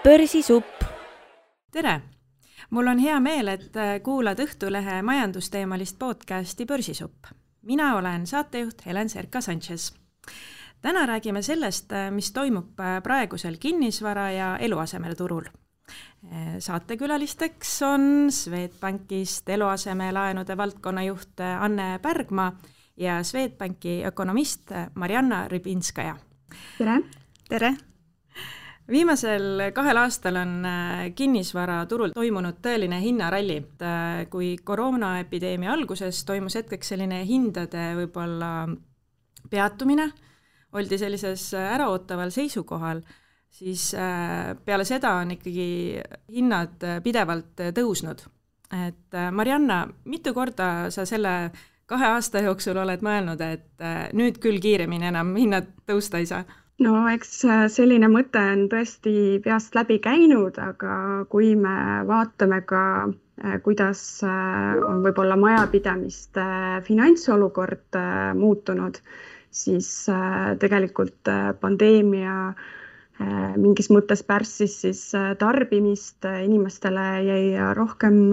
Börsisupp. Tere! Mul on hea meel, et kuulad Õhtulehe majandusteemalist podcasti Börsisupp. Mina olen saatejuht Helen Serka-Sanchez. Täna räägime sellest, mis toimub praegusel kinnisvara ja eluasemeturul. Saatekülalisteks on Swedbankist eluasemelaenude valdkonnajuht Anne Pärgma ja Swedbanki ökonomist Marianna Rybinskaja. Tere! Tere! Viimasel 2 aastal on kinnisvaraturul toimunud tõeline hinnaralli. Kui koroonaepideemia alguses toimus hetkeks selline hindade võib-olla peatumine, oldi sellises äraootaval seisukohal, siis peale seda on ikkagi hinnad pidevalt tõusnud. Et Marianna, mitu korda sa selle 2 aasta jooksul oled mõelnud, et nüüd küll kiiremini enam hinnad tõusta ei saa? No eks selline mõte on tõesti peast läbi käinud, aga kui me vaatame ka, kuidas on võib-olla majapidamiste finantsolukord muutunud, siis tegelikult pandeemia mingis mõttes pärssis siis tarbimist, inimestele jäi rohkem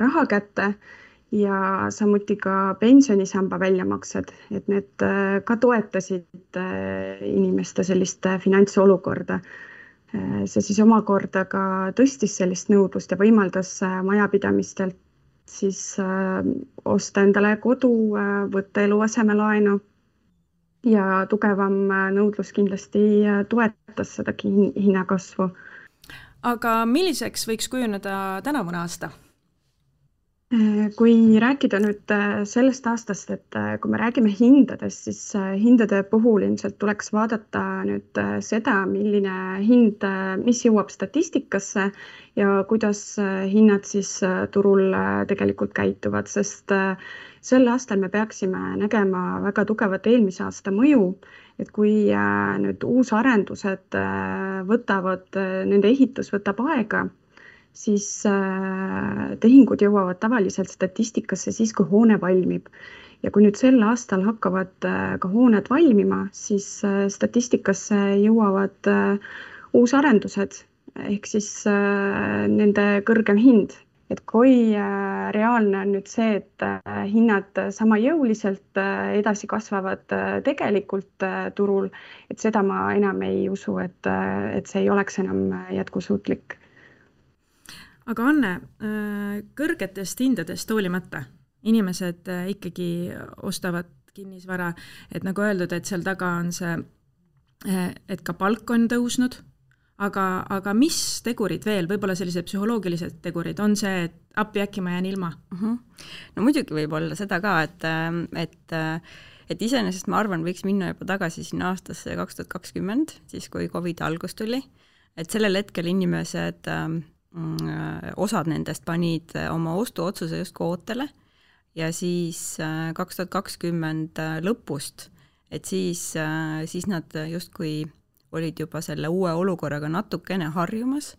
raha kätte ja samuti ka pensionisamba väljamaksed, et need ka toetasid inimeste sellist finantsolukorda. See siis omakorda ka tõstis sellist nõudlust ja võimaldas majapidamistelt siis osta endale kodu, võtta eluasemelaenu ja tugevam nõudlus kindlasti toetas seda hinnakasvu. Aga milliseks võiks kujuneda tänavune aasta? Kui rääkida nüüd sellest aastast, et kui me räägime hindadest, siis hindade puhul ilmselt tuleks vaadata nüüd seda, milline hind, mis jõuab statistikasse ja kuidas hinnad siis turul tegelikult käituvad, sest sel aastal me peaksime nägema väga tugevat eelmise aasta mõju, et kui nüüd uusarendused nende ehitus võtab aega, siis tehingud jõuavad tavaliselt statistikasse siis, kui hoone valmib. Ja kui nüüd sel aastal hakkavad ka hooned valmima, siis statistikasse jõuavad uusarendused, ehk siis nende kõrgem hind. Et kui reaalne on nüüd see, et hinnad sama jõuliselt edasi kasvavad tegelikult turul, et seda ma enam ei usu, et see ei oleks enam jätkusuutlik. Aga Anne, kõrgetest hindadest hoolimata inimesed ikkagi ostavad kinnisvara, et nagu öeldud, et seal taga on see, et ka palk on tõusnud, aga mis tegurid veel, võib-olla sellised psühholoogilised tegurid, on see, et appi äkki ma jään ilma? No muidugi võib olla seda ka, et iseenesest ma arvan, võiks minna juba tagasi sinna aastasse 2020, siis kui COVID algus tuli, et sellel hetkel inimesed osad nendest panid oma ostuotsuse just ootele ja siis 2020 lõpust, et siis nad justkui olid juba selle uue olukorraga natukene harjumas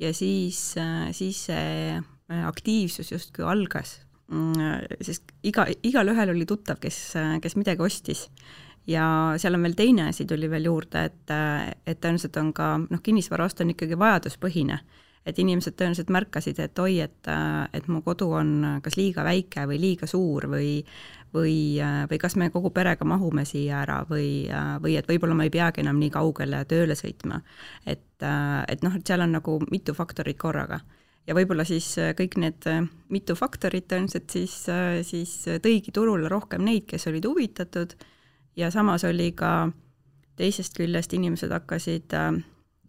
ja siis see aktiivsus justkui algas, sest igal ühel oli tuttav, kes midagi ostis. Ja seal on veel teine asi tuli veel juurde, et tõenäoliselt on ka kinnisvara ost on ikkagi vajaduspõhine. Et inimesed tõenäoliselt märkasid, et et mu kodu on kas liiga väike või liiga suur või kas me kogu perega mahume siia ära või et võib-olla ma ei peagi enam nii kaugele tööle sõitma. Et seal on nagu mitu faktorit korraga. Ja võib-olla siis kõik need mitu faktorit tõenäoliselt siis tõigi turule rohkem neid, kes olid huvitatud ja samas oli ka teisest küljest inimesed hakkasid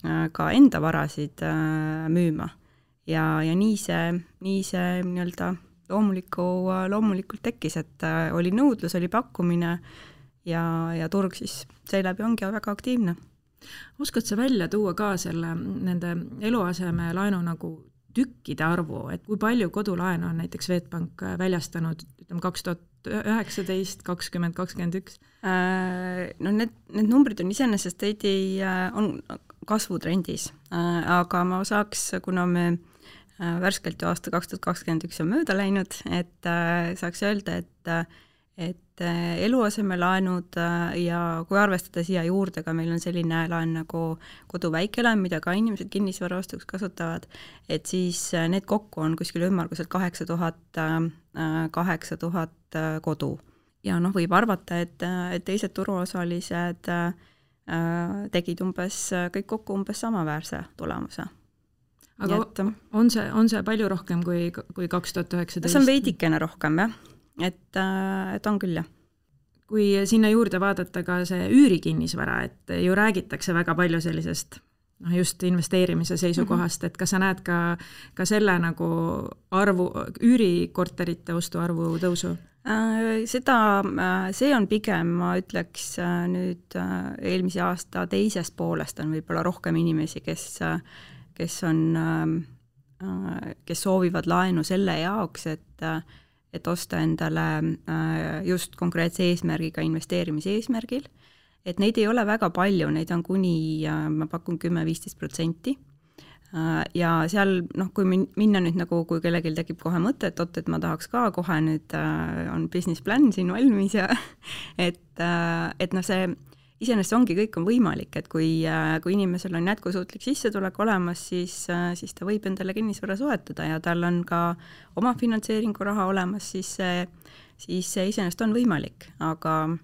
ka enda varasid müüma ja nii see nii-öelda loomulikult tekkis, et oli nõudlus, oli pakkumine ja turg siis seeläbi ongi väga aktiivne. Oskad sa välja tuua ka nende eluaseme laenu nagu tükkide arvu, et kui palju kodulaenu on näiteks Swedbank väljastanud 2019, 2020, 2021? No need numbrid on iseenesest on kasvutrendis, aga ma saaks, kuna me värskelt ju aasta 2021 on mööda läinud, et saaks öelda, et eluasemelaenud ja kui arvestada siia juurde ka, meil on selline laen nagu kodu väikelaen, mida ka inimesed kinnisvara ostuks kasutavad, et siis need kokku on kuskil ümmarguselt 8000 kodu. Ja võib arvata, et teised turuosalised tegid kõik kokku umbes samaväärse tulemuse. Aga on see palju rohkem kui 2019? See on veidikene rohkem, jah. Et on küll, jah. Kui sinna juurde vaadata ka see üürikinnisvara, et ju räägitakse väga palju sellisest just investeerimise seisukohast, et kas sa näed ka selle nagu üürikorterite ostuarvu tõusu? See on pigem, ma ütleks nüüd eelmise aasta teisest poolest on võib-olla rohkem inimesi, kes soovivad laenu selle jaoks, et osta endale just konkreetse eesmärgiga investeerimise eesmärgil, et neid ei ole väga palju, neid on kuni, ma pakun 10-15%. Ja seal, kui minna nüüd nagu, kui kellelgi tekib kohe mõte, et ma tahaks ka kohe nüüd on business plan siin valmis ja et see iseenesest ongi, kõik on võimalik, et kui inimesel on jätkusuutlik sissetulek olemas, siis ta võib endale kinnisvara soetada ja tal on ka oma finantseeringu raha olemas, siis see iseenesest on võimalik, aga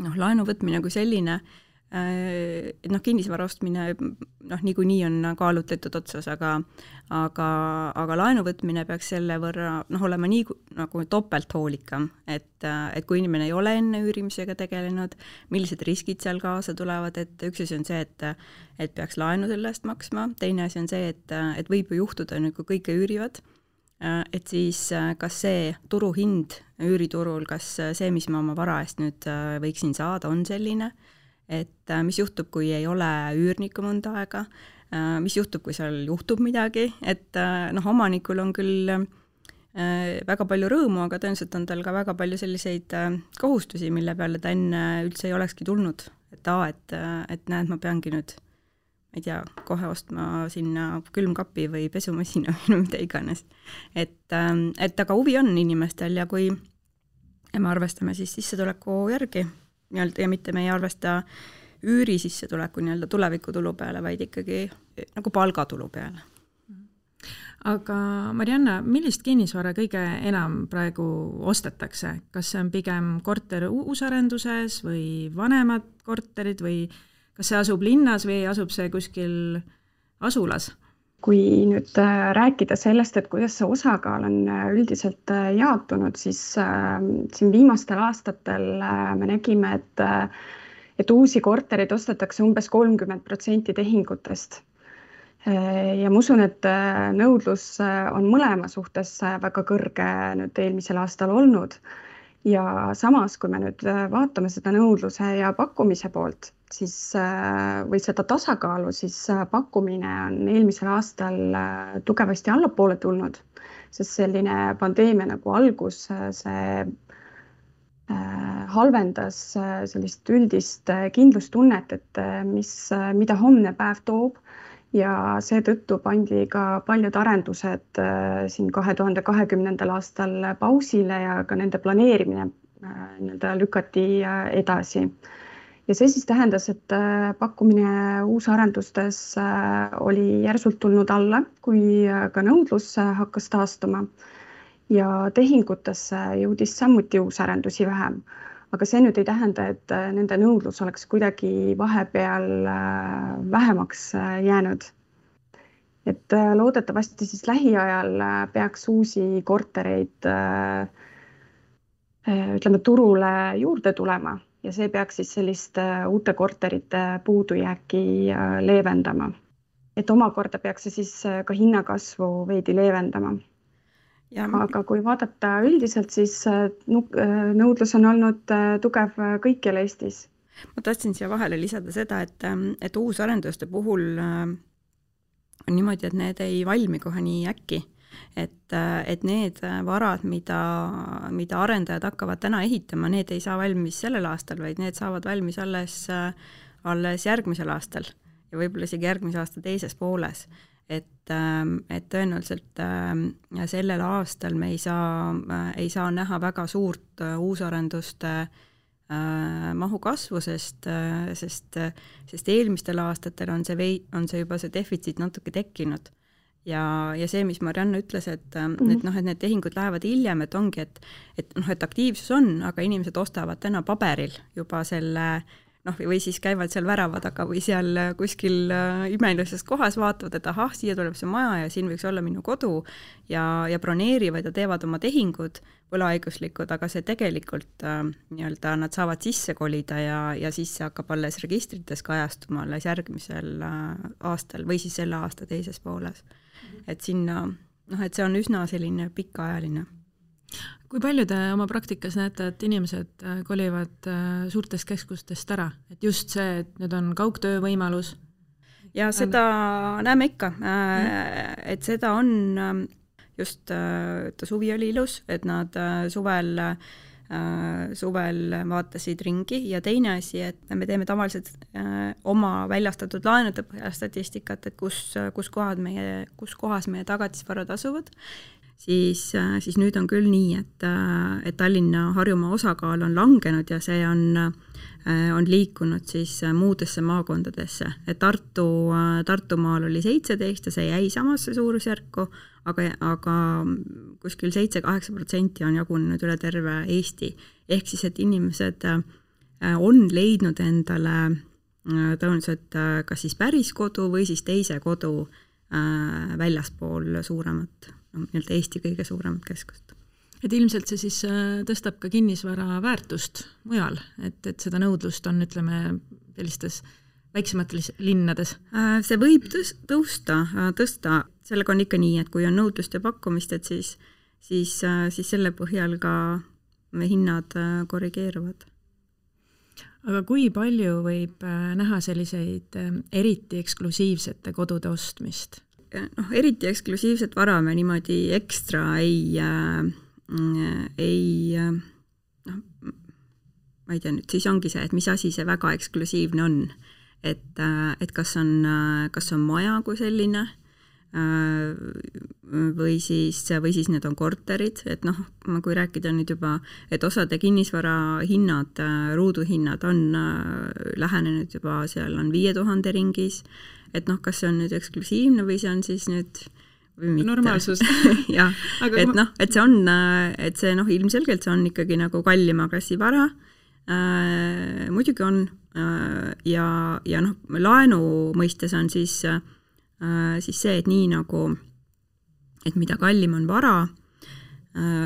laenu võtmine kui selline, kinnisvara ostmine niikuinii on kaalutletud otsas, aga laenu võtmine peaks selle võrra olema nii nagu topelt hoolikam, et kui inimene ei ole enne üürimisega tegelenud, millised riskid seal kaasa tulevad, et üks asi on see, et peaks laenu selle eest maksma, teine asi on see, et võib ju juhtuda, kui kõike üürivad, et siis kas see turuhind üüriturul, kas see, mis ma oma vara eest nüüd võiksin saada, on selline, et mis juhtub, kui ei ole üürnikku mõnda aega, mis juhtub, kui seal juhtub midagi, et omanikul on küll väga palju rõõmu, aga tõenäoliselt on tal ka väga palju selliseid kohustusi, mille peale ta enne üldse ei olekski tulnud. Et näed, ma peangi nüüd, ma ei tea, kohe ostma sinna külmkapi või pesumasina või mida iganes. Et aga huvi on inimestel ja kui me arvestame siis sissetuleku järgi, ja mitte me ei arvesta üüri sissetuleku tulevikutulu peale, vaid ikkagi nagu palgatulu peale. Aga Marianna, millist kinnisvara kõige enam praegu ostetakse? Kas see on pigem korter uusarenduses või vanemad korterid või kas see asub linnas või asub see kuskil asulas? Kui nüüd rääkida sellest, et kuidas see osakaal on üldiselt jaotunud, siis siin viimastel aastatel me nägime, et uusi korterid ostetakse umbes 30% tehingutest. Ja ma usun, et nõudlus on mõlema suhtes väga kõrge nüüd eelmisel aastal olnud. Ja samas, kui me nüüd vaatame seda nõudluse ja pakkumise poolt, siis, või seda tasakaalu, siis pakkumine on eelmisel aastal tugevasti allapoole tulnud, sest selline pandeemia nagu algus, see halvendas sellist üldist kindlustunnet, et mida homne päev toob ja seetõttu pandi ka paljud arendused siin 2020. aastal pausile ja ka nende planeerimine lükati edasi. Ja see siis tähendas, et pakkumine uusarendustes oli järsult tulnud alla, kui ka nõudlus hakkas taastuma ja tehingutesse jõudis samuti uusarendusi vähem. Aga see nüüd ei tähenda, et nende nõudlus oleks kuidagi vahepeal vähemaks jäänud. Et loodetavasti siis lähiajal peaks uusi kortereid turule juurde tulema ja see peaks siis sellist uute korterite puudujääki leevendama. Et omakorda peaks see siis ka hinnakasvu veidi leevendama. Aga kui vaadata üldiselt, siis nõudlus on olnud tugev kõikjal Eestis. Ma tahtsin siia vahele lisada seda, et uusarenduste puhul on niimoodi, et need ei valmi kohe nii äkki. Et need varad, mida arendajad hakkavad täna ehitama, need ei saa valmis sellel aastal, vaid need saavad valmis alles järgmisel aastal ja võib-olla isegi järgmise aasta teises pooles. et tõenäoliselt sellel aastal me ei saa näha väga suurt uusarenduste mahu kasvu, sest eelmistel aastatel on see juba see defitsiit natuke tekkinud. Ja see, mis Marianna ütles, et need tehingud lähevad hiljem, et ongi, et aktiivsus on, aga inimesed ostavad täna paberil juba selle või siis käivad seal värava taga või seal kuskil imelises kohas, vaatavad, et ahah, siia tuleb see maja ja siin võiks olla minu kodu ja broneerivad ja teevad oma tehingud võlaõiguslikud, aga see tegelikult nii-öelda nad saavad sisse kolida ja siis see hakkab alles registrites kajastuma alles järgmisel aastal või siis selle aasta teises pooles. Et sinna, et see on üsna selline pikaajaline. Kui palju te oma praktikas näete, et inimesed kolivad suurtest keskustest ära? Et just see, et nüüd on kaugtöö võimalus? Ja seda näeme ikka. Et seda on just, suvi oli ilus, et nad suvel vaatasid ringi ja teine asi, et me teeme tavaliselt oma väljastatud laenude statistikat, et kus kohas meie tagatisvarad asuvad. Siis nüüd on küll nii, et Tallinna Harjumaa osakaal on langenud ja see on liikunud siis muudesse maakondadesse. Et Tartumaal oli 17 ja see jäi samasse suurusjärku, aga kuskil 7-8% on jagunenud üle terve Eesti. Ehk siis, et inimesed on leidnud endale tõenäoliselt kas siis päris kodu või siis teise kodu väljaspool suuremat, nii-öelda Eesti kõige suuremat keskust. Et ilmselt see siis tõstab ka kinnisvara väärtust mujal, et seda nõudlust on, ütleme, sellistes väiksemates linnades? See võib tõsta. Sellega on ikka nii, et kui on nõudlust ja pakkumist, et siis selle põhjal ka hinnad korrigeeruvad. Aga kui palju võib näha selliseid eriti eksklusiivsete kodude ostmist? Eriti eksklusiivset vara me niimoodi ekstra ma ei tea nüüd, siis ongi see, et mis asi see väga eksklusiivne on. Et kas on maja kui selline või siis need on korterid, et kui rääkida nüüd juba, et osade kinnisvara hinnad, ruuduhinnad on lähenenud juba, seal on 5000 ringis, et kas see on nüüd eksklusiivne või see on siis nüüd või mitte. Normaalsus. jah, et see on, et see ilmselgelt see on ikkagi nagu kallima klassi vara, muidugi on ja laenu mõistes on siis see, et nii nagu, et mida kallim on vara,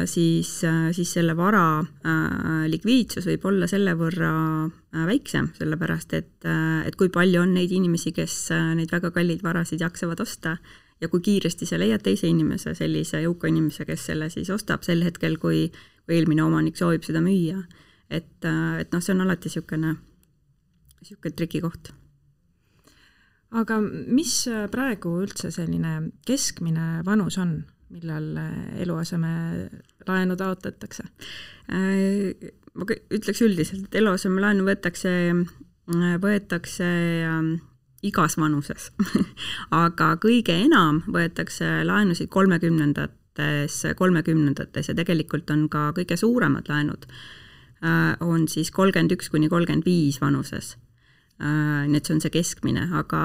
siis selle vara likviidsus võib olla selle võrra väiksem, sellepärast et kui palju on neid inimesi, kes neid väga kalleid varasid jaksavad osta ja kui kiiresti sa leiad teise inimese, sellise jõuka inimese, kes selle siis ostab sel hetkel, kui eelmine omanik soovib seda müüa. Et see on alati niisugune trikikoht. Aga mis praegu üldse selline keskmine vanus on, millal eluaseme laenu taotletakse? Ma ütleks üldiselt, et eluaseme laenu võetakse igas vanuses. Aga kõige enam võetakse laenusid 30-ndates ja tegelikult on ka kõige suuremad laenud on siis 31-35 vanuses. Nii et see on see keskmine, aga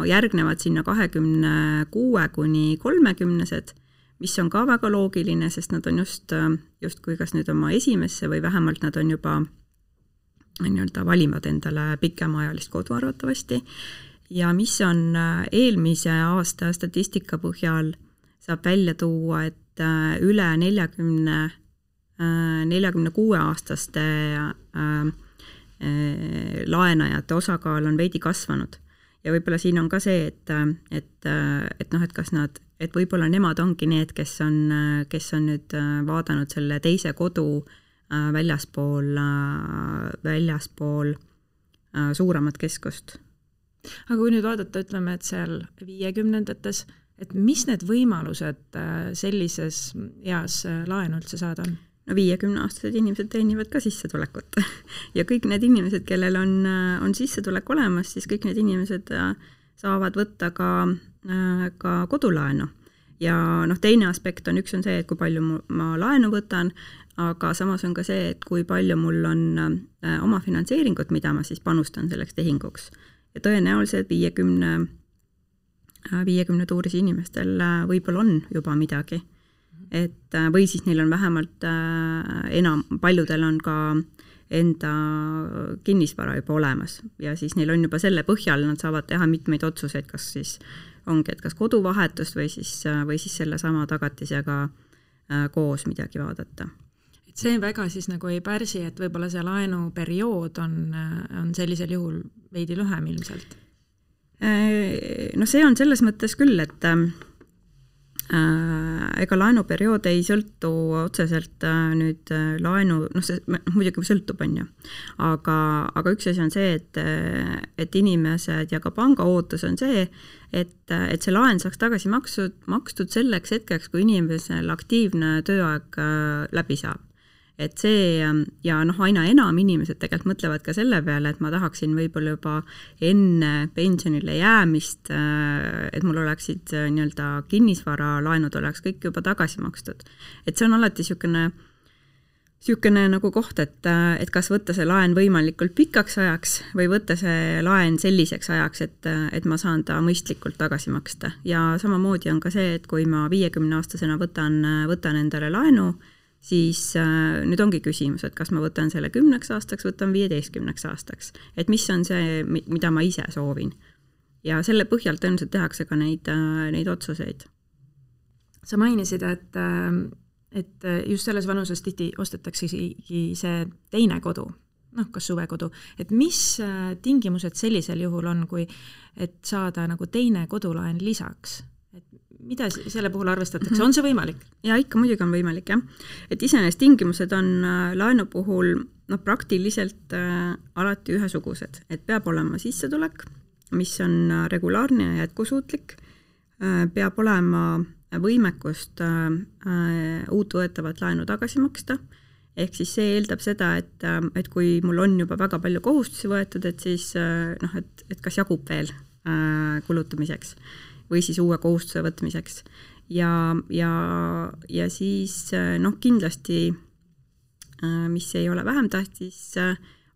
järgnevad sinna 26-30-sed, mis on ka väga loogiline, sest nad on just kui kas nüüd oma esimesse või vähemalt nad on juba nii-öelda valivad endale pikemaajalist kodu arvatavasti. Ja mis on eelmise aasta statistika põhjal saab välja tuua, et üle 46-aastaste laenajate osakaal on veidi kasvanud. Ja võib-olla siin on ka see, et kas nad, et võib-olla nemad ongi need, kes on nüüd vaadanud selle teise kodu väljaspool suuremat keskust. Aga kui nüüd vaadata, ütleme, et seal 50-ndates, et mis need võimalused sellises eas laenu üldse saada on? 50-aastased inimesed teenivad ka sissetulekut ja kõik need inimesed, kellel on sissetulek olemas, siis kõik need inimesed saavad võtta ka ka kodulaenu. Ja teine aspekt on, üks on see, et kui palju ma laenu võtan, aga samas on ka see, et kui palju mul on oma finantseeringut, mida ma siis panustan selleks tehinguks. Ja tõenäoliselt 50 tuuris inimestel võib-olla on juba midagi. Või siis neil on vähemalt paljudel on ka enda kinnisvara juba olemas ja siis neil on juba selle põhjal, nad saavad teha mitmeid otsuseid, kas siis ongi, et kas koduvahetust või siis selle sama tagatisega koos midagi vaadata. See väga siis nagu ei pärsi, et võib-olla see laenuperiood on sellisel juhul veidi lühem ilmselt? See on selles mõttes küll, et ega laenuperiood ei sõltu otseselt nüüd laenu, see muidugi sõltub, on ju. Aga üks asi on see, et inimesed ja ka panga ootus on see, et see laen saaks tagasi makstud selleks hetkeks, kui inimesel aktiivne tööaeg läbi saab. Et see ja aina enam inimesed tegelikult mõtlevad ka selle peale, et ma tahaksin võib-olla juba enne pensionile jäämist, et mul oleksid nii-öelda kinnisvara laenud oleks kõik juba tagasi makstud. Et see on alati siukene nagu koht, et kas võtta see laen võimalikult pikaks ajaks või võtta see laen selliseks ajaks, et ma saan ta mõistlikult tagasi maksta. Ja samamoodi on ka see, et kui ma 50-aastasena võtan endale laenu, siis nüüd ongi küsimus, et kas ma võtan selle 10 aastaks, võtan 15 aastaks. Et mis on see, mida ma ise soovin. Ja selle põhjalt tõenäoliselt tehakse ka neid otsuseid. Sa mainisid, et just selles vanuses tihti ostetaksegi see teine kodu, kas suvekodu. Et mis tingimused sellisel juhul on, kui et saada nagu teine kodulaen lisaks? Mida selle puhul arvestatakse? On see võimalik? Ja ikka muidugi on võimalik, jah. Et iseenesest tingimused on laenu puhul praktiliselt alati ühesugused. Et peab olema sissetulek, mis on regulaarne ja jätkusuutlik. Peab olema võimekust uut võetavat laenu tagasi maksta. Ehk siis see eeldab seda, et kui mul on juba väga palju kohustusi võetud, et siis et kas jagub veel kulutamiseks või siis uue kohustuse võtmiseks. Ja siis kindlasti, mis ei ole vähem tähtis,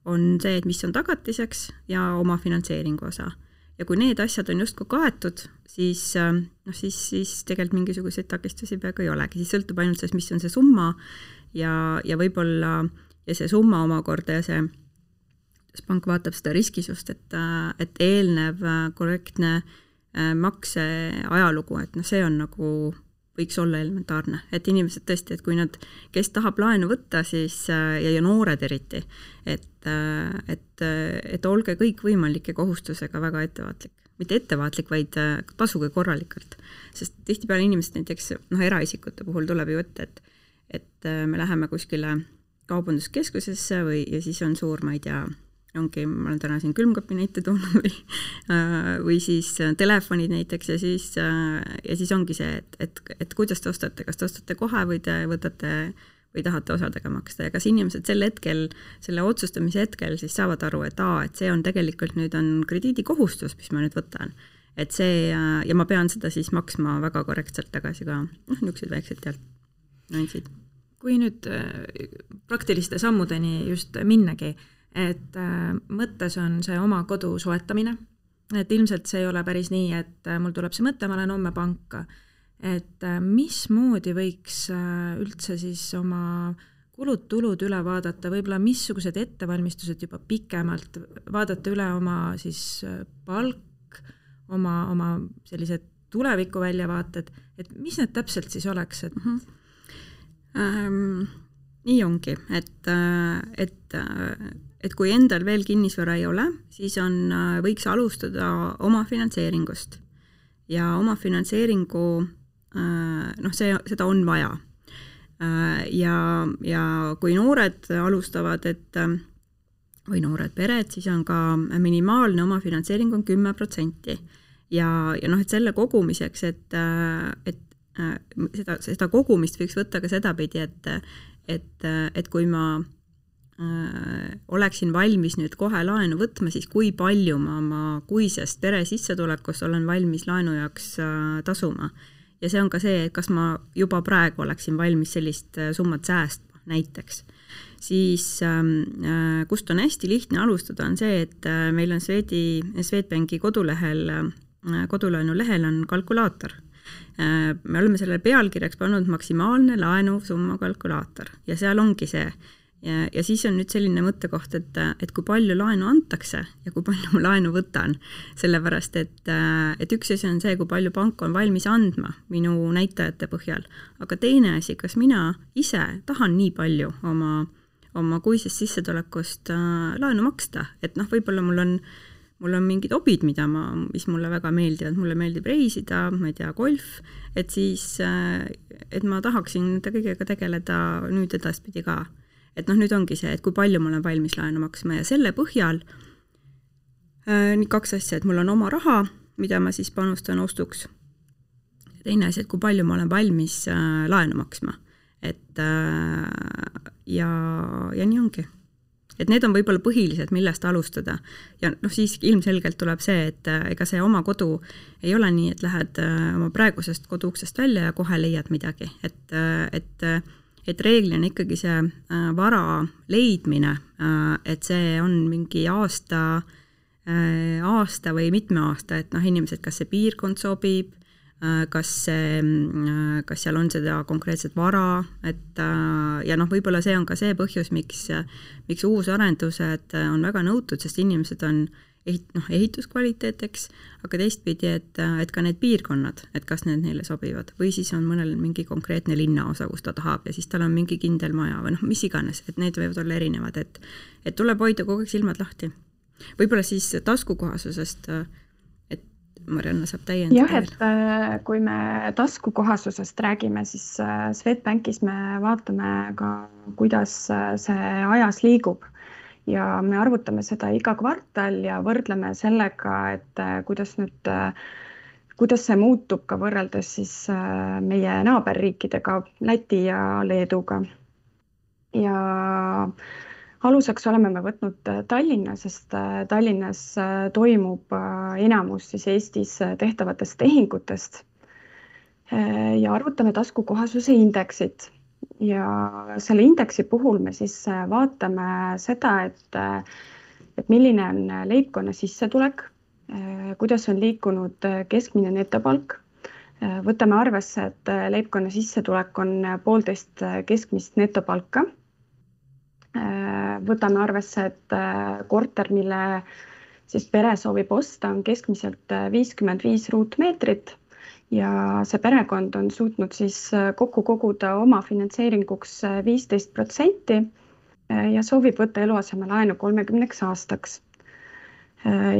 on see, et mis on tagatiseks ja oma finantseeringu osa. Ja kui need asjad on justkui kaetud, siis tegelikult mingisuguseid takistusi peaaegu ei olegi. Siis sõltub ainult sellest, mis on see summa ja võib-olla ja see summa omakorda ja see pank vaatab seda riskisust, et eelnev korrektne makse ajalugu, et see on nagu võiks olla elementaarne, et inimesed tõesti, et kui nad, kes tahab laenu võtta, siis ja noored eriti, et olge kõik võimalike kohustusega väga ettevaatlik. Mitte ettevaatlik, vaid tasuge korralikult. Sest tihtipeale inimesed näiteks eraisikute puhul tuleb ju ette, et me läheme kuskile kaubanduskeskusesse ja siis on suur, ma ei tea, ma olen täna siin külmkapi näite toonud või siis telefonid näiteks ja siis ongi see, et kuidas te ostate, kas te ostate kohe või te võtate või tahate osadega maksta ja kas inimesed selle otsustamise hetkel siis saavad aru, et see on tegelikult nüüd on krediidikohustus, mis ma nüüd võtan. Et see ja ma pean seda siis maksma väga korrektselt tagasi ka niisugused väiksed nüansid. Kui nüüd praktiliste sammudeni just minnagi, et mõttes on see oma kodu soetamine, et ilmselt see ei ole päris nii, et mul tuleb see mõte, ma lähen homme panka, et mismoodi võiks üldse siis oma kulud-tulud üle vaadata, võib-olla missugused ettevalmistused juba pikemalt, vaadata üle oma siis palk, oma sellised tuleviku väljavaated, et mis need täpselt siis oleks? Nii ongi, et kui endal veel kinnisvara ei ole, siis võiks alustada oma finantseeringust ja oma finantseeringu, seda on vaja. Ja kui noored alustavad, või noored pered, siis on ka minimaalne oma finantseering on 10%. Ja et selle kogumiseks, et seda kogumist võiks võtta ka sedapidi, et kui ma oleksin valmis nüüd kohe laenu võtma, siis kui palju ma oma kuisest pere sissetulekust olen valmis laenu jaoks tasuma. Ja see on ka see, et kas ma juba praegu oleksin valmis sellist summat säästma näiteks. Siis kust on hästi lihtne alustada on see, et meil on Swedbanki kodulaenu lehel on kalkulaator. Me oleme sellele pealkirjaks pannud maksimaalne laenusumma kalkulaator ja seal ongi see. Ja siis on nüüd selline mõttekoht, et kui palju laenu antakse ja kui palju ma laenu võtan, sellepärast, et üks asi on see, kui palju pank on valmis andma minu näitajate põhjal, aga teine asi, kas mina ise tahan nii palju oma kuisest sissetulekust laenu maksta, et võib-olla mul on mingid hobid, mis mulle väga meeldivad, mulle meeldib reisida, ma ei tea, golf, et siis, et ma tahaksin nende kõigega tegeleda nüüd edaspidi ka. Et nüüd ongi see, et kui palju ma olen valmis laenu maksma ja selle põhjal nii 2 asja, et mul on oma raha, mida ma siis panustan ostuks. Teine asi, et kui palju ma olen valmis laenu maksma. Et, ja nii ongi. Et need on võib-olla põhilised, millest alustada. Ja siis ilmselgelt tuleb see, et ega see oma kodu ei ole nii, et lähed oma praegusest koduuksest välja ja kohe leiad midagi. Et reeglina ikkagi see vara leidmine, et see on mingi aasta või mitme aasta, et inimesed, kas see piirkond sobib, kas seal on seda konkreetset vara, et ja võib-olla see on ka see põhjus, miks uusarendused on väga nõutud, sest inimesed on ehituskvaliteeteks, aga teistpidi, et ka need piirkonnad, et kas need neile sobivad või siis on mõnel mingi konkreetne linnaosa, kus ta tahab ja siis tal on mingi kindel maja või mis iganes, et need võivad olla erinevad, et tuleb hoida kogu aeg silmad lahti. Võib-olla siis taskukohasusest, et Marianna saab täiendada. Jah, et kui me taskukohasusest räägime, siis Swedbankis me vaatame ka, kuidas see ajas liigub. Ja me arvutame seda iga kvartal ja võrdleme sellega, et kuidas see muutub ka võrreldes siis meie naaberriikidega, Läti ja Leeduga. Ja aluseks oleme me võtnud Tallinna, sest Tallinnas toimub enamus siis Eestis tehtavatest tehingutest ja arvutame taskukohasuse indeksit. Ja selle indeksi puhul me siis vaatame seda, et milline on leibkonna sissetulek, kuidas on liikunud keskmine netopalk. Võtame arvesse, et leibkonna sissetulek on 1,5 keskmist netopalka. Võtame arvesse, et korter, mille siis pere soovib osta, on keskmiselt 55 ruutmeetrit. Ja see perekond on suutnud siis kokku koguda oma finantseeringuks 15% ja soovib võtta eluasemelaenu 30 aastaks.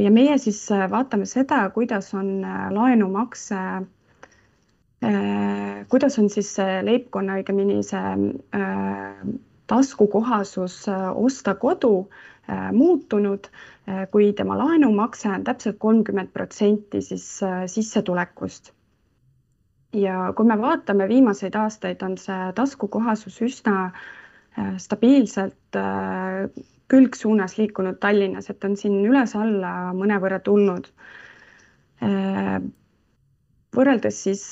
Ja meie siis vaatame seda, kuidas on laenumakse, kuidas on siis leibkonna õigemini see taskukohasus osta kodu muutunud, kui tema laenumakse on täpselt 30% siis sissetulekust. Ja kui me vaatame viimaseid aastaid, on see taskukohasus üsna stabiilselt külgsuunas liikunud Tallinnas, et on siin üles-alla mõnevõrra tulnud. Võrreldes siis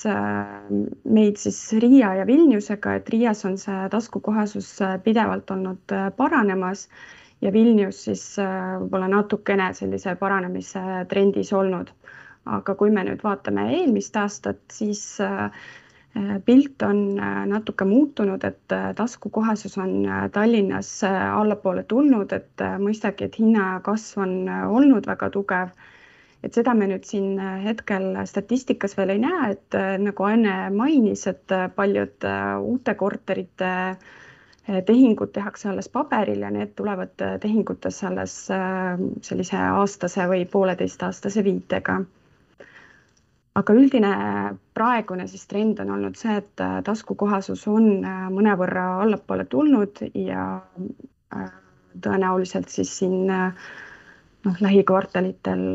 meid siis Riia ja Vilniusega, et Riias on see taskukohasus pidevalt olnud paranemas ja Vilnius siis võib-olla natukene sellise paranemise trendis olnud. Aga kui me nüüd vaatame eelmist aastat, siis pilt on natuke muutunud, et taskukohasus on Tallinnas allapoole tulnud, et mõistagi, et hinnakasv on olnud väga tugev. Et seda me nüüd siin hetkel statistikas veel ei näe, et nagu Anne mainis, et paljud uute korterite tehingud tehakse alles paberil ja need tulevad tehingutes alles sellise aastase või 1,5-aastase viitega. Aga üldine praegune siis trend on olnud see, et taskukohasus on mõnevõrra allapoole tulnud ja tõenäoliselt siis siin lähikvartalitel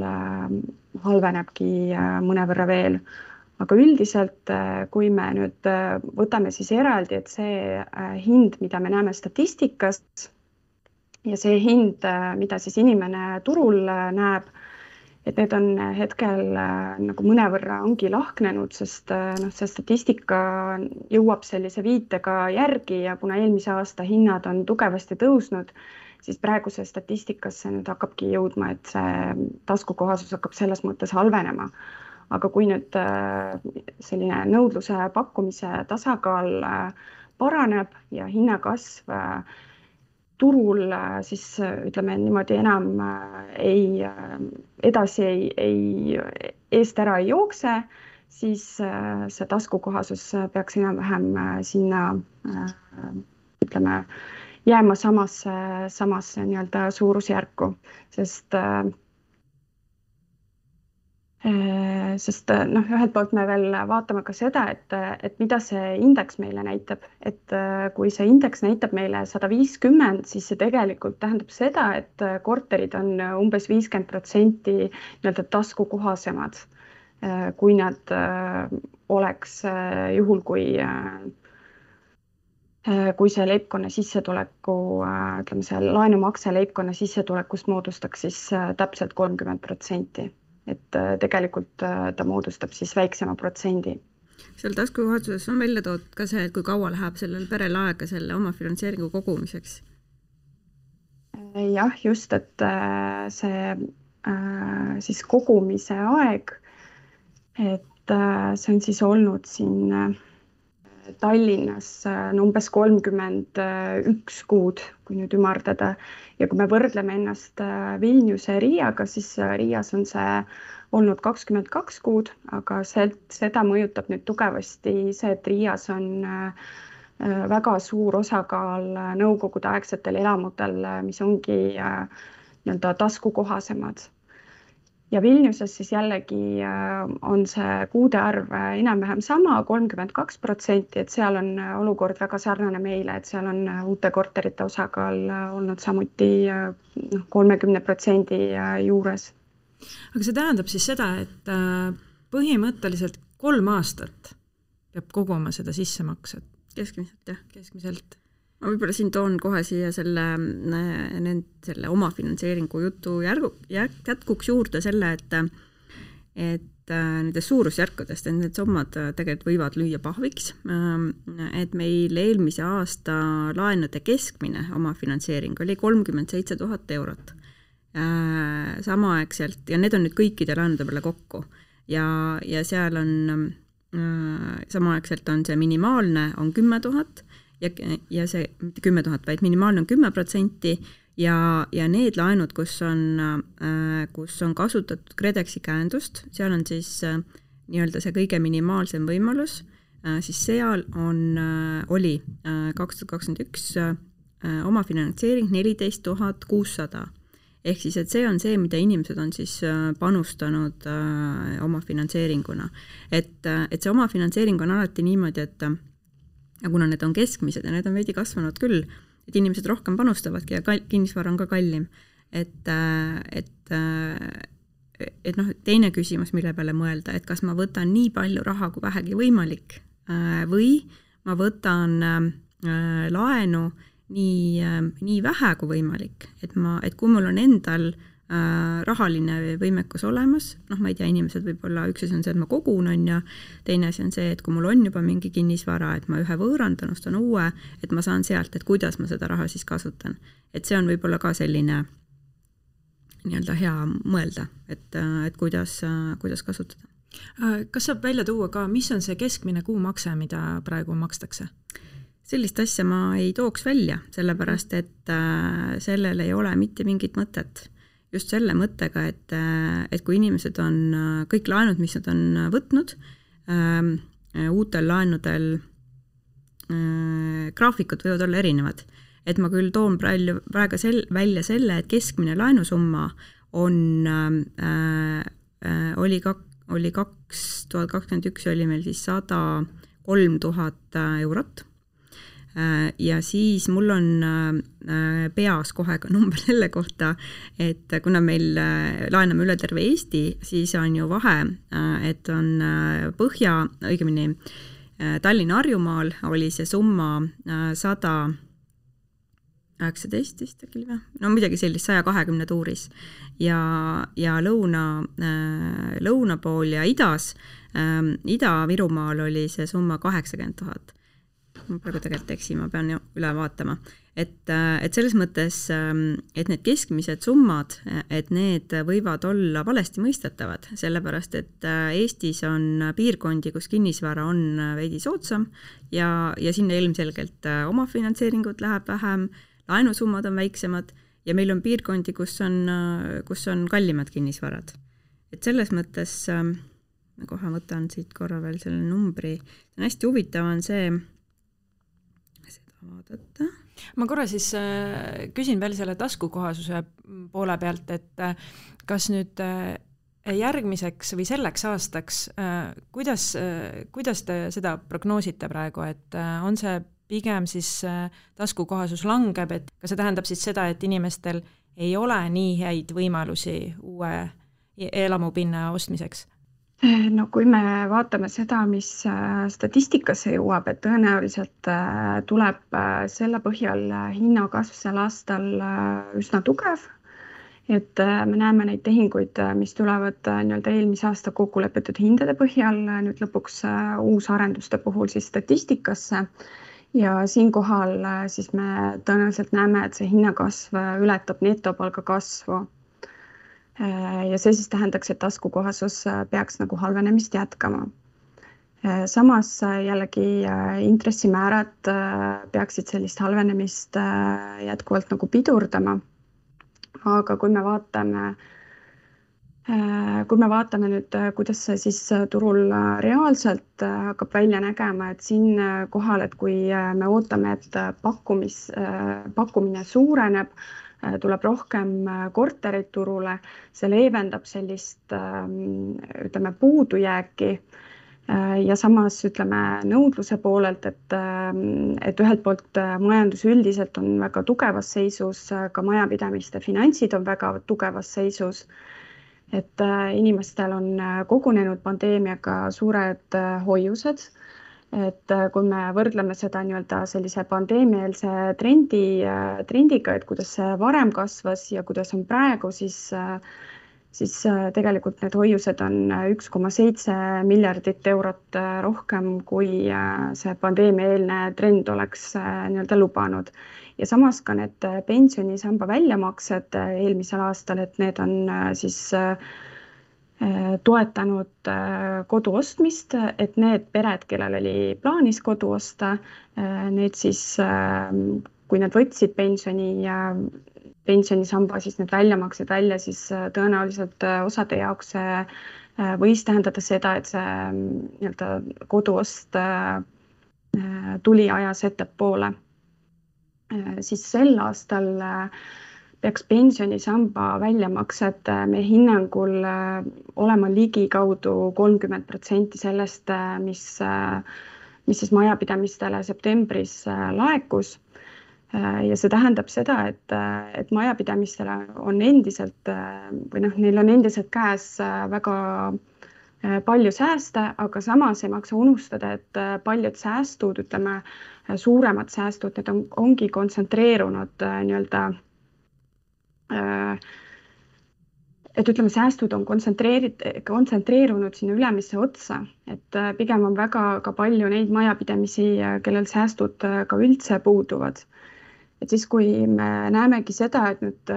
halvenebki mõnevõrra veel. Aga üldiselt, kui me nüüd võtame siis eraldi, et see hind, mida me näeme statistikas, ja see hind, mida siis inimene turul näeb, et need on hetkel nagu mõnevõrra ongi lahknenud, sest see statistika jõuab sellise viitega järgi ja kuna eelmise aasta hinnad on tugevasti tõusnud, siis praeguse statistikasse nüüd hakkabki jõudma, et see taskukohasus hakkab selles mõttes halvenema. Aga kui nüüd selline nõudluse pakkumise tasakaal paraneb ja hinnakasv turul siis ütleme niimoodi enam eest ära ei jookse, siis see taskukohasus peaks enam-vähem sinna ütleme jääma samasse nii-öelda suurusjärku, sest ühelt poolt me veel vaatame ka seda, et mida see indeks meile näitab, et kui see indeks näitab meile 150, siis see tegelikult tähendab seda, et korterid on umbes 50% nii-öelda taskukohasemad, kui nad oleks juhul, kui see leibkonna sissetuleku, ütleme see laenumakse leibkonna sissetulekust moodustaks siis täpselt 30%. Et tegelikult ta moodustab siis väiksema protsendi. Seal taskukohasuses on välja toodud ka see, et kui kaua läheb sellel perel aega selle oma finantseeringu kogumiseks? Jah, just, et see siis kogumise aeg, et see on siis olnud siin Tallinnas umbes 31 kuud, kui nüüd ümardada. Ja kui me võrdleme ennast Vilniuse Riiaga, siis Riias on see olnud 22 kuud, aga seda mõjutab nüüd tugevasti see, et Riias on väga suur osakaal nõukogude aegsetel elamutel, mis ongi nii-öelda taskukohasemad. Ja Vilniuses siis jällegi on see kuude arv enam-vähem sama, 32%, et seal on olukord väga sarnane meile, et seal on uute korterite osakaal olnud samuti 30% juures. Aga see tähendab siis seda, et põhimõtteliselt 3 aastat peab koguma seda sissemaksed? Keskmiselt, jah. Keskmiselt. Ma võib-olla siin toon kohe siia selle oma finantseeringu jutu jätkuks juurde selle, et nendes suurusjärkudest, et need summad tegelikult võivad lüüa pahviks, et meil eelmise aasta laenude keskmine oma finantseering oli 37 000 eurot. Samaaegselt, ja need on nüüd kõikide laenude peale kokku, ja seal on samaaegselt on see minimaalne on 10 000, ja see 10 000, vaid minimaalne on 10% ja need laenud, kus on kasutatud KredExi käendust, seal on siis nii-öelda see kõige minimaalsem võimalus, siis seal oli 2021 oma finantseering 14 600. Ehk siis, et see on see, mida inimesed on siis panustanud oma finantseeringuna. Et see oma finantseering on alati niimoodi, et ja kuna need on keskmised ja need on veidi kasvanud küll, et inimesed rohkem panustavadki ja kinnisvara on ka kallim. Et teine küsimus, mille peale mõelda, et kas ma võtan nii palju raha kui vähegi võimalik või ma võtan laenu nii vähe kui võimalik, et kui mul on endal rahaline võimekus olemas, ma ei tea, inimesed võib-olla üks asi on see, et ma kogun on ja teine asi on see, et kui mul on juba mingi kinnisvara, et ma ühe võõrandan, ostan uue, et ma saan sealt, et kuidas ma seda raha siis kasutan. Et see on võib-olla ka selline nii-öelda hea mõelda, et kuidas kasutada. Kas saab välja tuua ka, mis on see keskmine kuumakse, mida praegu makstakse? Sellist asja ma ei tooks välja, sellepärast, et sellel ei ole mitte mingit mõtet. Just selle mõttega, et kui inimesed on kõik laenud, mis nad on võtnud, uutel laenudel graafikud võivad olla erinevad. Et ma küll toon praegu välja selle, et keskmine laenusumma oli 2021 oli meil siis 103 000 eurot. Ja siis mul on peas kohe ka number selle kohta, et kuna meil laename üle terve Eesti, siis on ju vahe, et on õigemini Tallinna Harjumaal oli see summa 100 19 vist äkki või? No midagi sellist, 120 tuuris. Ja lõuna pool ja idas, Ida-Virumaal oli see summa 80 000. Ma praegu tegelikult eksin, ma pean üle vaatama. Et selles mõttes, et need keskmised summad, et need võivad olla valesti mõistetavad, sellepärast et Eestis on piirkondi, kus kinnisvara on veidi soodsam ja sinna ilmselgelt omafinantseeringut läheb vähem, laenusummad on väiksemad ja meil on piirkondi, kus on kallimad kinnisvarad. Et selles mõttes, ma kohe võtan siit korra veel selle numbri, see on hästi huvitav on see, seda vaadata. Ma korra siis küsin veel selle taskukohasuse poole pealt, et kas nüüd järgmiseks või selleks aastaks, kuidas te seda prognoosite praegu, et on see pigem siis taskukohasus langeb, et kas see tähendab siis seda, et inimestel ei ole nii häid võimalusi uue elamupinna ostmiseks? No kui me vaatame seda, mis statistikasse jõuab, et tõenäoliselt tuleb selle põhjal hinnakasv sel aastal üsna tugev, et me näeme neid tehinguid, mis tulevad nii-öelda eelmise aasta kokkulepitud hindade põhjal nüüd lõpuks uusarenduste puhul siis statistikasse ja siinkohal siis me tõenäoliselt näeme, et see hinnakasv ületab netopalga kasvu. Ja see siis tähendaks, et taskukohasus peaks nagu halvenemist jätkama. Samas jällegi intressimäärad peaksid sellist halvenemist jätkuvalt nagu pidurdama. Aga kui me vaatame nüüd, kuidas see siis turul reaalselt hakkab välja nägema, et siin kohal, et kui me ootame, et pakkumine suureneb, tuleb rohkem korterid turule, see leevendab sellist puudujääki ja samas nõudluse poolelt, et ühelt poolt majandus üldiselt on väga tugevas seisus, ka majapidamiste finantsid on väga tugevas seisus, et inimestel on kogunenud pandeemiaga suured hoiused, et kui me võrdleme seda nii-öelda sellise pandeemiaelse trendiga, et kuidas see varem kasvas ja kuidas on praegu, siis tegelikult need hoiused on 1,7 miljardit eurot rohkem, kui see pandeemiaeelne trend oleks nii-öelda lubanud. Ja samas ka need pensionisamba väljamaksed eelmisel aastal, et need on siis toetanud kodu ostmist, et need pered, kellel oli plaanis kodu osta, need siis, kui nad võtsid pensionisamba, siis need väljamaksed välja, siis tõenäoliselt osade jaoks võis tähendada seda, et see nii-öelda koduost tuli ajas ettepoole. Siis sel aastal peaks pensionisamba väljamaksed meie hinnangul olema ligikaudu 30% sellest, mis siis majapidamistele septembris laekus. Ja see tähendab seda, et majapidamistele on endiselt või neil on endiselt käes väga palju sääste, aga samas ei maksa unustada, et paljud säästud, suuremad säästud, need ongi kontsentreerunud nii-öelda, et säästud on kontsentreerunud sinna ülemisse otsa, et pigem on väga ka palju neid majapidamisi, kellel säästud ka üldse puuduvad. Et siis, kui me näemegi seda, et nüüd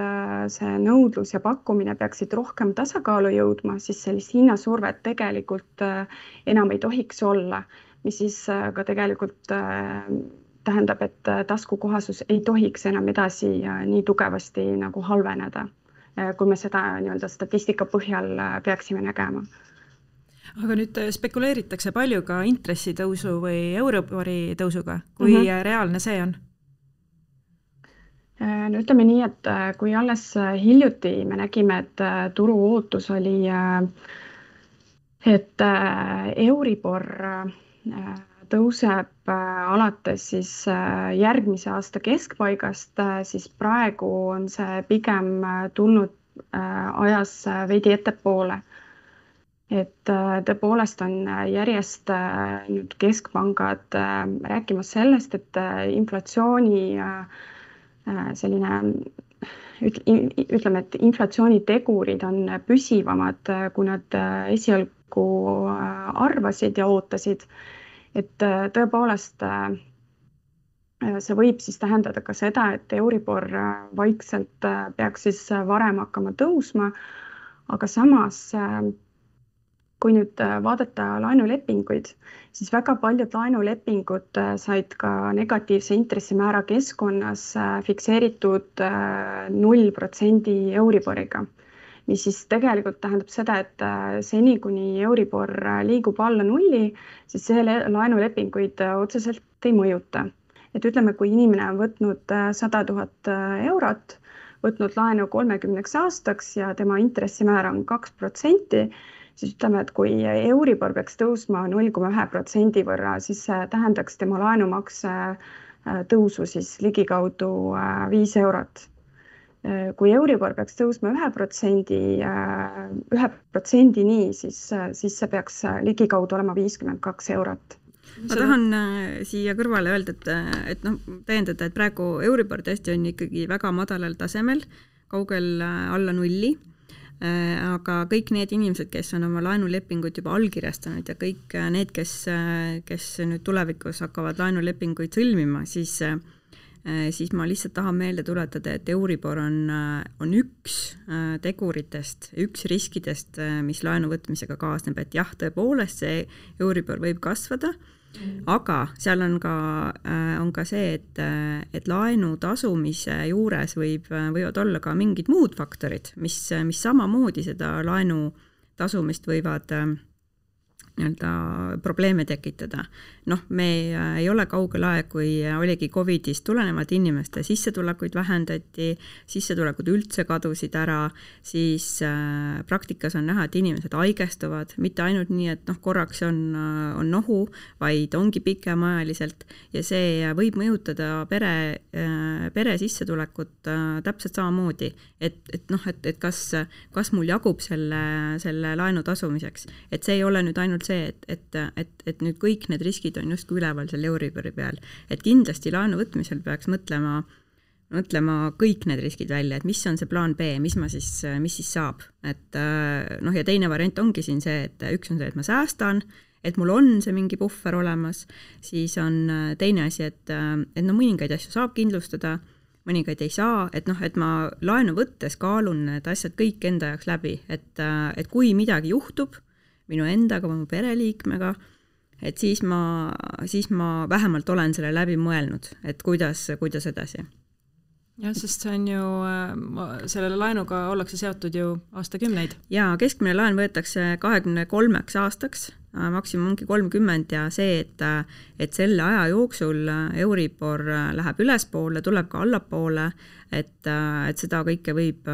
see nõudlus ja pakkumine peaksid rohkem tasakaalu jõudma, siis sellist hinnasurvet tegelikult enam ei tohiks olla, mis siis ka tegelikult tähendab, et taskukohasus ei tohiks enam edasi nii tugevasti nagu halveneda, kui me seda nii-öelda statistika põhjal peaksime nägema. Aga nüüd spekuleeritakse palju ka intressitõusu või Euribori tõusuga, kui reaalne see on? No ütleme nii, et kui alles hiljuti me nägime, et turu ootus oli, et Euribor tõuseb alates siis järgmise aasta keskpaigast, siis praegu on see pigem tulnud ajas veidi ettepoole. Et tõepoolest on järjest nüüd keskpangad rääkimas sellest, et inflatsiooni selline ütleme, et inflatsioonitegurid on püsivamad, kui nad esialgu arvasid ja ootasid. Et tõepoolest see võib siis tähendada ka seda, et Euribor vaikselt peaks siis varem hakkama tõusma, aga samas kui nüüd vaadata laenulepinguid, siis väga paljud laenulepingud said ka negatiivse intressimäära keskkonnas fikseeritud 0% Euriboriga, mis siis tegelikult tähendab seda, et seni kuni Euribor liigub alla 0, siis see laenulepinguid otseselt ei mõjuta. Et ütleme, kui inimene on võtnud 100 000 eurot, võtnud laenu 30 aastaks ja tema intressimäär on 2%, siis ütleme, et kui Euribor peaks tõusma 0,1% võrra, siis see tähendaks tema laenumakse tõusu siis ligikaudu 5 eurot. Kui Euribor peaks tõusma 1%-ni, siis see peaks ligikaudu olema 52 eurot. Ma tahan siia kõrvale öelda, et täiendada, et praegu Euribor tõesti on ikkagi väga madalal tasemel, kaugel alla 0. Aga kõik need inimesed, kes on oma laenulepinguid juba allkirjastanud ja kõik need, kes nüüd tulevikus hakkavad laenulepinguid sõlmima, siis ma lihtsalt tahan meelde tuletada, et Euribor on üks teguritest, üks riskidest, mis laenu võtmisega kaasneb, et jah, tõepoolest see Euribor võib kasvada, aga seal on ka see, et laenu tasumise juures võivad olla ka mingid muud faktorid, mis samamoodi seda laenu tasumist võivad probleeme tekitada. Me ei ole kaugel aeg, kui oligi Covidist tulenevalt inimeste sissetulekuid vähendati, sissetulekud üldse kadusid ära, siis praktikas on näha, et inimesed haigestuvad, mitte ainult nii, et korraks on nohu, vaid ongi pikemaajaliselt ja see võib mõjutada pere sissetulekut täpselt samamoodi, et kas mul jagub selle laenu tasumiseks, et see ei ole nüüd ainult see, et nüüd kõik need riskid on justkui üleval selle Euribori peal. Et kindlasti laenu võtmisel peaks mõtlema kõik need riskid välja, et mis on see plaan B, mis siis saab. Ja teine variant ongi siin see, et üks on see, et ma säästan, et mul on see mingi puhver olemas, siis on teine asi, et mõningaid asju saab kindlustada, mõningaid ei saa, et ma laenu võttes kaalun need asjad kõik enda jaoks läbi, et kui midagi juhtub minu endaga või mu pereliikmega, et siis ma vähemalt olen selle läbi mõelnud, et kuidas edasi. Jah, sest see on ju, sellele laenuga ollakse seotud ju aastakümneid. Ja keskmine laen võetakse 23 aastaks, maksimum ongi 30 ja see, et selle aja jooksul Euribor läheb ülespoole, tuleb ka allapoole, et seda kõike võib,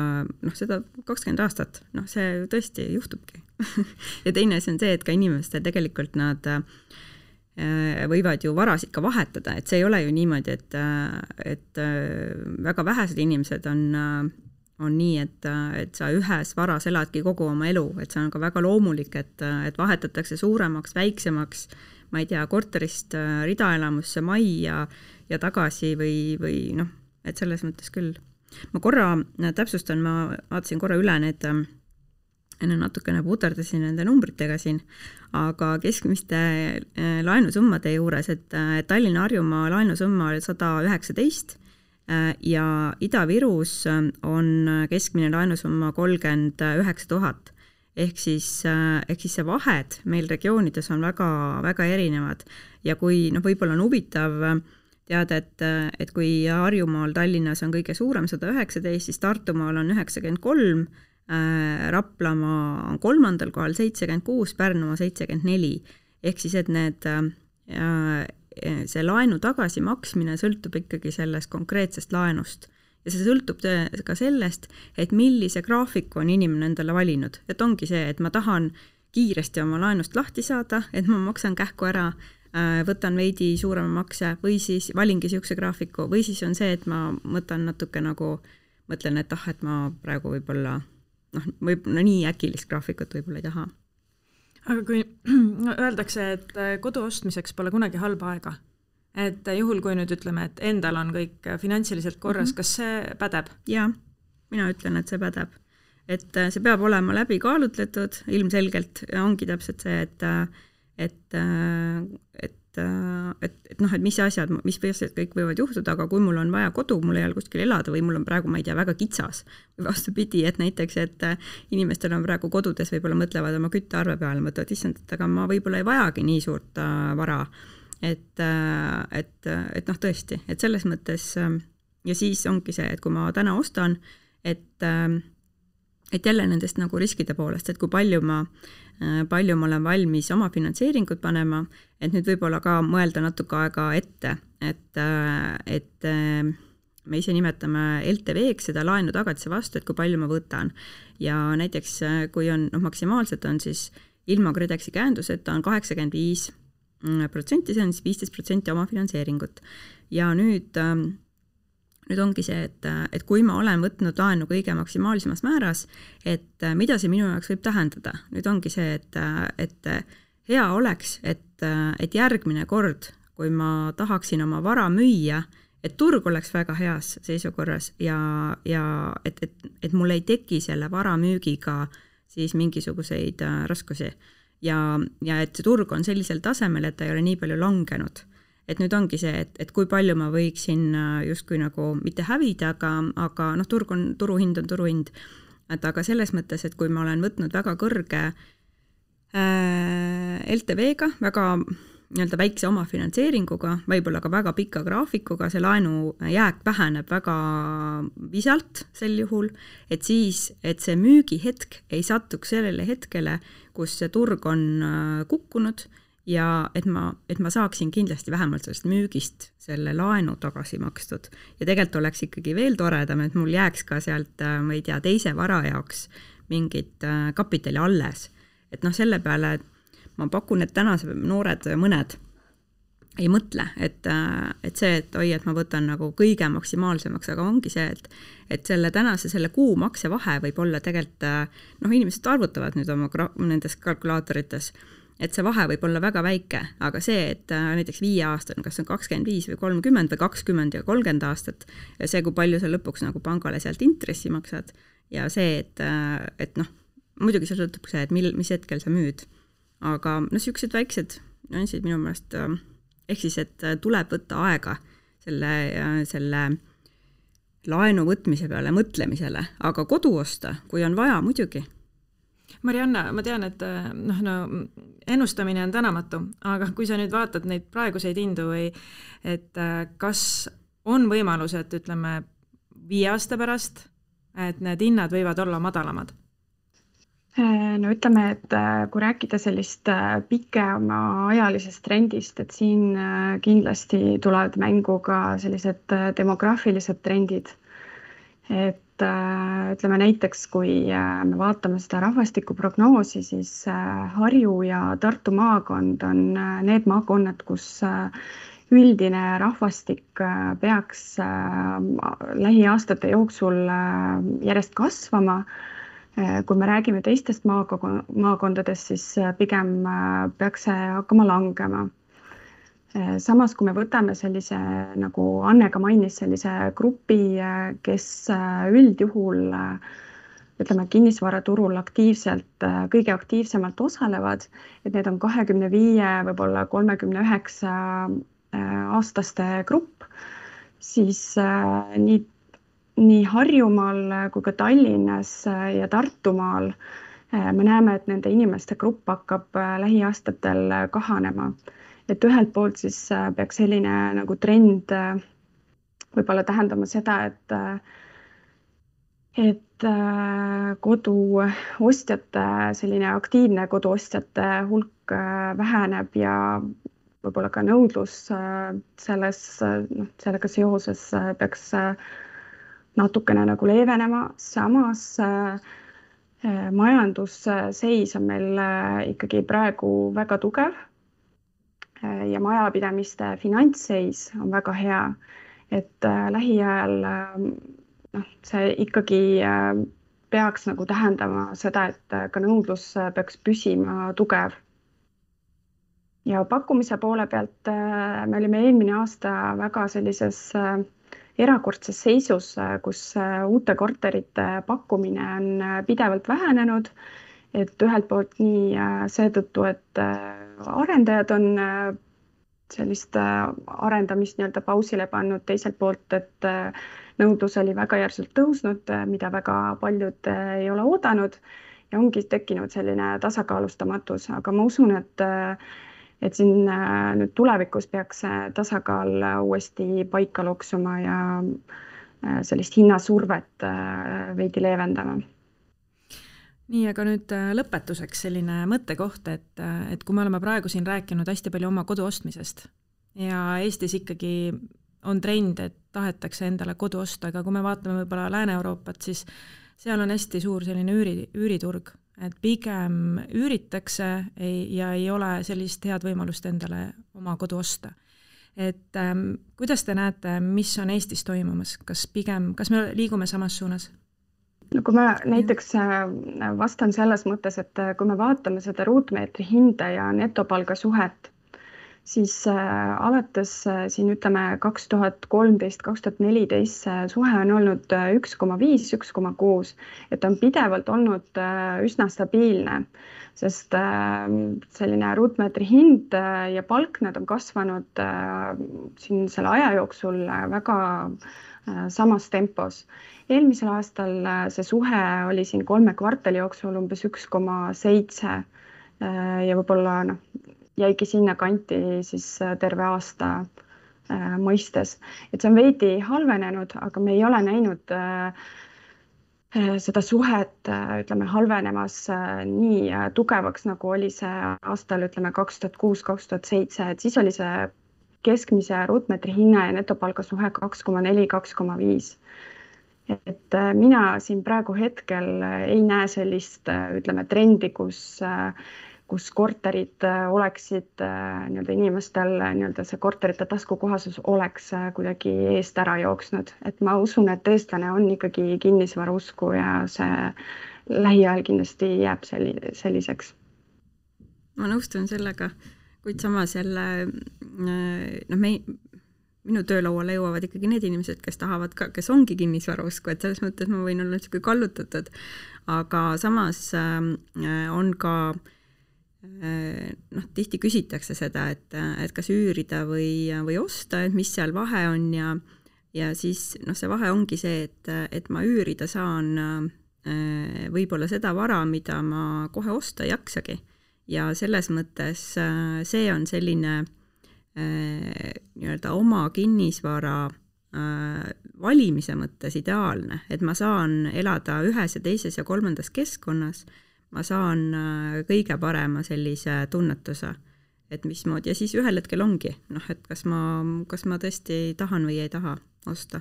seda 20 aastat, see tõesti juhtubki. Ja teine asi on see, et ka inimestel tegelikult nad võivad ju varas ikka vahetada, et see ei ole ju niimoodi, et väga vähesed inimesed on nii, et sa ühes varas eladki kogu oma elu, et see on ka väga loomulik, et vahetatakse suuremaks, väiksemaks, ma ei tea, korterist ridaelamusse majja ja tagasi või et selles mõttes küll. Ma korra täpsustan, ma vaatasin korra üle need natukene puterdasin nende numbritega siin, aga keskmiste laenusummade juures, et Tallinna Harjumaa laenusumma oli 119 ja Ida-Virus on keskmine laenusumma 39 000. Ehk siis see vahed meil regioonides on väga, väga erinevad ja kui võib-olla on huvitav teada, et kui Harjumaal Tallinnas on kõige suurem 119, siis Tartumaal on 93, Raplamaa on 3. kohal 76, Pärnumaa 74. Ehk siis, et see laenu tagasimaksmine sõltub ikkagi sellest konkreetsest laenust. Ja see sõltub ka sellest, et millise graafiku on inimene endale valinud. Et ongi see, et ma tahan kiiresti oma laenust lahti saada, et ma maksan kähku ära, võtan veidi suurema makse või siis valingi siukse graafiku või siis on see, et ma mõtlen natuke mõtlen, et ma praegu võib-olla nii äkilist graafikut võib-olla ei taha. Aga kui öeldakse, et kodu ostmiseks pole kunagi halba aega, et juhul, kui nüüd ütleme, et endal on kõik finantsiliselt korras, kas see pädeb? Jaa, mina ütlen, et see pädeb. Et see peab olema läbi kaalutletud, ilmselgelt ongi täpselt see, et mis asjad kõik võivad juhtuda, aga kui mul on vaja kodu, mul ei ole kuskil elada või mul on praegu, ma ei tea, väga kitsas või vastupidi, et näiteks, et inimestel on praegu kodudes, võib-olla mõtlevad oma küttearve peale, mõtlevad, issand, et aga ma võib-olla ei vajagi nii suurt vara, et tõesti, et selles mõttes ja siis ongi see, et kui ma täna ostan, et jälle nendest nagu riskide poolest, et kui palju ma olen valmis oma finantseeringut panema, et nüüd võib-olla ka mõelda natuke aega ette, et me ise nimetame LTV-ks seda laenu tagatise vastu, et kui palju ma võtan. Ja näiteks kui on, maksimaalselt on siis ilma KredExi käenduseta on 85%, see on siis 15% oma finantseeringut. Ja nüüd ongi see, et kui ma olen võtnud laenu kõige maksimaalsemas määras, et mida see minu jaoks võib tähendada. Nüüd ongi see, et hea oleks, et järgmine kord, kui ma tahaksin oma vara müüa, et turg oleks väga heas seisukorras ja et mul ei teki selle vara müügiga siis mingisuguseid raskusi. Ja et see turg on sellisel tasemel, et ta ei ole nii palju langenud. Et nüüd ongi see, et kui palju ma võiksin justkui nagu mitte hävida, aga turuhind on turuhind. Et aga selles mõttes, et kui ma olen võtnud väga kõrge LTV-ga, väga nii-öelda väikse oma finantseeringuga, võib-olla ka väga pika graafikuga, see laenu jääk väheneb väga visalt sel juhul, et siis, et see müügihetk ei satuks sellele hetkele, kus see turg on kukkunud, ja et ma saaksin kindlasti vähemalt sellest müügist selle laenu tagasi makstud. Ja tegelikult oleks ikkagi veel toredam, et mul jääks ka sealt, ma ei tea, teise vara jaoks mingit kapitali alles. Et selle peale ma pakun, et tänase noored mõned ei mõtle, et see, et et ma võtan nagu kõige maksimaalsemaks, aga ongi see, et selle kuu maksevahe võib olla tegelikult, inimesed arvutavad nüüd oma nendes kalkulaatorites, et see vahe võib olla väga väike, aga see, et näiteks 5 aastat, kas on 25 või 30 või 20 ja 30 aastat, ja see, kui palju sa lõpuks nagu pangale sealt intressi maksad, ja see, et muidugi see sõltub see, et mis hetkel sa müüd. Aga sellised väiksed nüansid minu meelest, ehk siis, et tuleb võtta aega selle laenu võtmise peale, mõtlemisele, aga kodu osta, kui on vaja, muidugi. Marianna, ma tean, et ennustamine on tänamatu, aga kui sa nüüd vaatad neid praeguseid hindu või et kas on võimalus, et ütleme 5 aasta pärast, et need hinnad võivad olla madalamad? No ütleme, et kui rääkida sellist pikema ajalisest trendist, et siin kindlasti tulevad mängu ka sellised demograafilised trendid. Et ütleme näiteks, kui me vaatame seda rahvastikuprognoosi, siis Harju ja Tartu maakond on need maakonnad, kus üldine rahvastik peaks lähiaastate jooksul järjest kasvama. Kui me räägime teistest maakondadest, siis pigem peaks see hakkama langema. Samas, kui me võtame sellise, nagu Anne ka mainis, sellise grupi, kes üldjuhul ütleme, kinnisvaraturul kõige aktiivsemalt osalevad, et need on 25, võib-olla 39 aastaste grupp, siis nii Harjumaal kui ka Tallinnas ja Tartumaal me näeme, et nende inimeste grupp hakkab lähiaastatel kahanema. Et ühelt poolt siis peaks selline nagu trend võib-olla tähendama seda, et koduostjate, selline aktiivne koduostjate hulk väheneb ja võib-olla ka nõudlus sellega seoses peaks natukene nagu leevenema. Samas majandusseis on meil ikkagi praegu väga tugev. Ja majapidamiste finantsseis on väga hea, et lähiajal see ikkagi peaks nagu tähendama seda, et ka nõudlus peaks püsima tugev. ja pakkumise poole pealt me olime eelmine aasta väga sellises erakordses seisus, kus uute korterite pakkumine on pidevalt vähenenud, et ühelt poolt nii seetõttu, et arendajad on sellist arendamist nii-öelda pausile pannud, teiselt poolt, et nõudlus oli väga järsult tõusnud, mida väga paljud ei ole oodanud ja ongi tekkinud selline tasakaalustamatus, aga ma usun, et siin nüüd tulevikus peaks tasakaal uuesti paika loksuma ja sellist hinnasurvet veidi leevendama. Nii, aga nüüd lõpetuseks selline mõttekoht, et kui me oleme praegu siin rääkinud hästi palju oma kodu ostmisest ja Eestis ikkagi on trend, et tahetakse endale kodu osta, aga kui me vaatame võib-olla Lääne-Euroopat, siis seal on hästi suur selline üüriturg, et pigem üüritakse ja ei ole sellist head võimalust endale oma kodu osta. Et kuidas te näete, mis on Eestis toimumas? Kas me liigume samas suunas? No kui ma näiteks vastan selles mõttes, et kui me vaatame seda ruutmeetri hinda ja netopalga suhet, siis alates siin ütleme 2013-2014 suhe on olnud 1,5-1,6, et on pidevalt olnud üsna stabiilne, sest selline ruutmeetri hind ja palk, nad on kasvanud siin selle aja jooksul väga samas tempos. Eelmisel aastal see suhe oli siin 3 kvartali jooksul umbes 1,7 ja võib-olla jäigi sinna kanti siis terve aasta mõistes. Et see on veidi halvenenud, aga me ei ole näinud seda suhet ütleme, halvenemas nii tugevaks, nagu oli see aastal ütleme 2006-2007, et siis oli see keskmise ruutmeetri hinna ja netopalga suhe 2,4-2,5. Et mina siin praegu hetkel ei näe sellist ütleme, trendi, kus korterid oleksid nii-öelda inimestel, nii-öelda see korterite taskukohasus oleks kuidagi eest ära jooksnud. Et ma usun, et eestlane on ikkagi kinnisvarausku ja see lähiajal kindlasti jääb selliseks. Ma nõustun sellega, kuid samas jälle minu töölauale jõuavad ikkagi need inimesed, kes tahavad ka, kes ongi kinnisvarausku, et selles mõttes ma võin olla niisugune kallutatud, aga samas on ka tihti küsitakse seda, et kas üürida või osta, et mis seal vahe on ja siis see vahe ongi see, et ma üürida saan võib-olla seda vara, mida ma kohe osta ei jaksagi ja selles mõttes see on selline nii-öelda oma kinnisvara valimise mõttes ideaalne, et ma saan elada ühes ja teises ja kolmandas keskkonnas, ma saan kõige parema sellise tunnetuse, et mismoodi ja siis ühel hetkel ongi, et kas ma tõesti tahan või ei taha osta.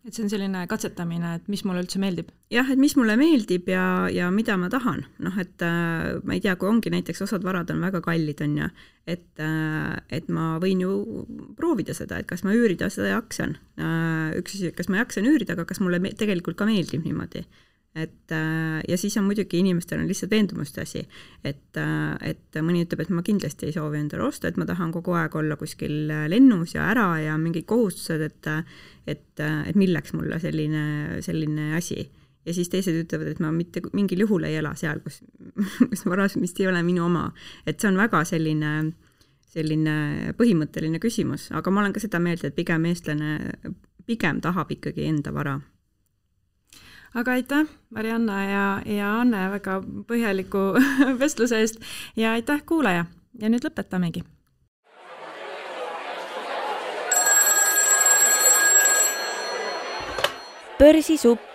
Et see on selline katsetamine, et mis mulle üldse meeldib? Jah, et mis mulle meeldib ja mida ma tahan. Et ma ei tea, kui ongi näiteks osad varad on väga kallid, on ja, et ma võin ju proovida seda, et kas ma üürida seda jaksan. Üks asi, kas ma jaksan üürida, aga kas mulle tegelikult ka meeldib niimoodi. Ja siis on muidugi inimestel on lihtsalt veendumuste asi, et mõni ütleb, et ma kindlasti ei soovi endale osta, et ma tahan kogu aeg olla kuskil lennus ja ära ja mingid kohustused, et milleks mulle selline asi. Ja siis teised ütlevad, et ma mitte mingil juhul ei ela seal, kus varas, mis ei ole minu oma. Et see on väga selline põhimõtteline küsimus, aga ma olen ka seda meelt, et pigem eestlane pigem tahab ikkagi enda vara. Aga aitäh, Marianna ja Anne väga põhjaliku vestluse eest ja aitäh kuulaja ja nüüd lõpetamegi. Börsisupp